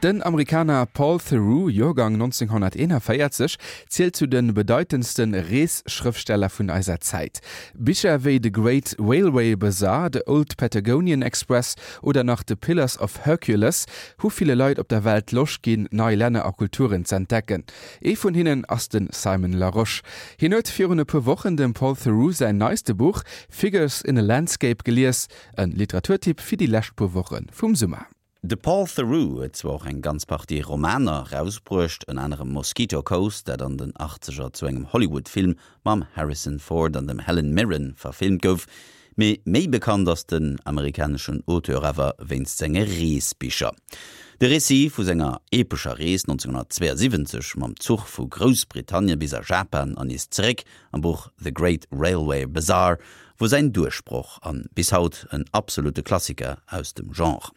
Den Amerikaner Paul Theroux, Joergang 1941, zielt zu de bedeitendste Reesschrëftsteller vun eiser Zäit. Bicher wéi The Great Railway Bazaar, The Old Patagonian Express oder nach The Pillars of Hercules hu ville Leit op der Welt Loscht ginn, nei Länner a Kulturen z'entdecken. Ee vun hinnen ass de Simon Larosche. Hien huet virun e puer Wochen dem Paul Theroux säin neiste Buch Figures in a Landscape gelies, e Literaturtipp fir déi lescht puer Woche vum Summer. De Paul Theroux huet zwar och eng ganz Partie Romaner erausbruecht, ënner anerem Mosquito Coast, dat an den Achtzeger zu engem Hollywood-Film mam Harrison Ford an dem Helen Mirren verfilmt gouf, mee méi bekannt ass den amerikaneschen Auteur awer wéinst senge Reesbicher. De Récit vu senger epescher Rees 1972 mam Zuch vu Groussbritannien bis a Japan an nees zeréck am Buch The Great Railway Bazaar wor säin Duerchbroch an bis haut en absolute Klassiker aus dem Genre.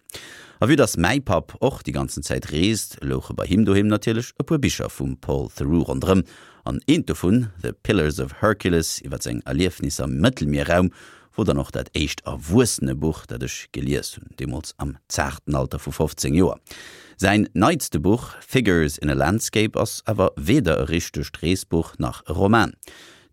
A vue dass mäi Papp och déi ganzen Zäit reest, louche bei him doheem natierlech e puer Bicher vum Paul Theroux ronderëm, an eent dovun, The Pillars of Hercules, iwwer seng Erliefnisser am Mëttelmierraum, wor dann och dat éischt Erwuessenebuch, dat ech gelies hunn, deemools am zaarten Alter vu 15 Joer. Säin neitste Buch, Figures in a Landscape, ass awer weder e richtegt Reesbuch nach e Roman.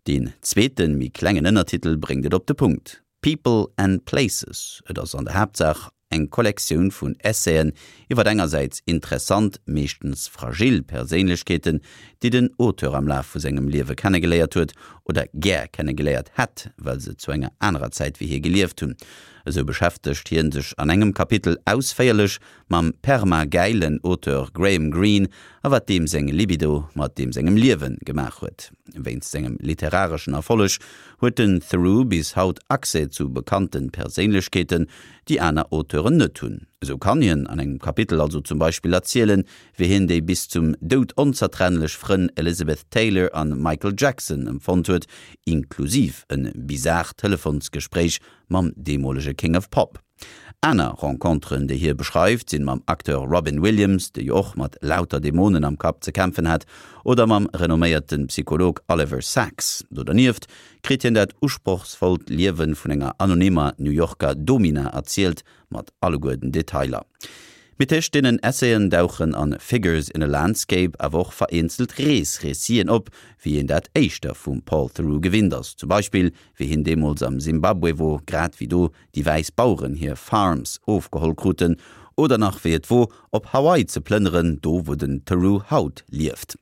Deen zweeten, méi klengen Ënnertitel bréngt et op de Punkt, People and Places. Et ass an der Haaptsaach eng Kollektioun vun Essaien iwwer engersäits interessant, meeschtens fragil Perséinlechkeeten, déi den Auteur am Laf vu sengem Liewe kennegeléiert huet oder gär kennegeléiert hätt, well se zu enger anerer Zäit wéi hie gelieft hunn. Esou beschäftegt hien sech an engem Kapitel ausféierlech mam perma-gäilen Auteur Graham Greene a wat deem seng Libido mat deem sengem Liewe gemaach huet. Wéinst sengem literareschen Erfolleg huet den Theroux bis haut Accès zu bekannte Perséinlechkeeten, déi aner Auteuren net hunn. Esou kann hien an engem Kapitel also zum Beispill erzielen, wéi hien déi bis zum Doud onzertrennlech Frënn Elizabeth Taylor an Michael Jackson empfonnt huet, inklusiv e bizart Telefonsgespréich mam deemolege King of Pop. Aner Renconteren, déi hie beschreift, sinn mam Acteur Robin Williams, dee jo och mat lauter Dämonen am Kapp ze kämpfen hat, oder mam renomméierte Psycholog Oliver Sacks. Do dernieft kritt hien dat usprochsvollt Liewe vun enger anonymer New Yorker Domina erzielt, mat alleguer den Detailer. Mee tëscht deenen Essayen dauchen a Figures in a Landscape awer och vereenzelt Rees-Réciten op, wéi een dat éischter vum Paul Theroux gewinnt ass, zum Beispill wéi hien deemools am Simbabwe wor, grad wéi do déi wäiss Baueren hir Farms ofgeholl kruten, oder nach wéi et wor, op Hawaii ze plënneren, do wou den Theroux haut lieft.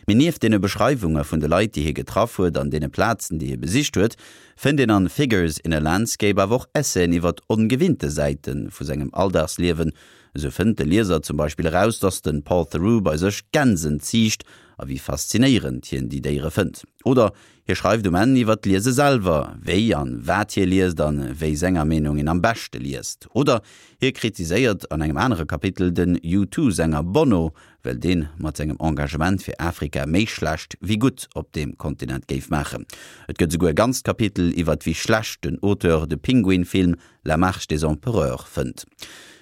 Mee nieft deene Beschreiwunge vun de Leit, déi hie getraff huet an deene Plazen, déi hie besicht huet, fënnt een an Figures in a Landscape awer och Essayen iwwert ongewinnte Säite vu sengem Alldagsliewen. Esou fënnt de Lieser zum Beispill eraus, dass de Paul Theroux bei sech Gänsen ziicht a wéi faszinéierend hien déi Déiere fënnt. Oder Hie schreift um Enn iwwer d'Liese selwer, wéi an wat hie liest an wéi senger Meenung een am beschte liest. Oder hie kritiséiert an engem anere Kapitel den U2-Sänger Bono, well deen mat sengem Engagement fir Afrika méi schlecht wéi gutt op deem Kontinent géif maachen. Et gëtt esouguer e ganzt Kapitel iwwer wéi schlecht den Auteur de Pinguin-Film La Marche des Empereurs fënnt.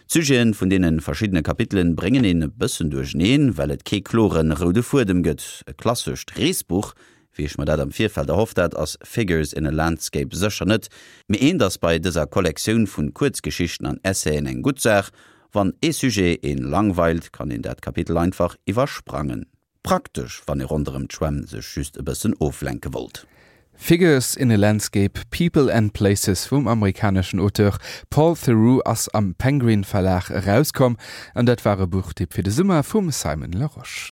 D'Sujeten vun deene verschiddene Kapitelen bréngen een e bëssen duercheneen, well et kee kloren roude Fuedem gëtt. E klassescht Reesbuch Wéi ech mer dat am Virfeld erhofft hat, ass Figures in a Landscape sécher net, mee eent ass bei dëser Kollektioun vun Kuerzgeschichten an Essayen eng gutt Saach, Wann ee Sujet een langweilt, kann een dat Kapitel einfach iwwersprangen. Praktesch, wann ee ronderëm d'Schwämm sech just e bëssen oflenke wollt. Figures in a Landscape, People and Places vum amerikaneschen Auteur Paul Theroux ass am Penguin Verlag erauskomm an dat war e Buchtipp fir de Summer vum Simon Larosche.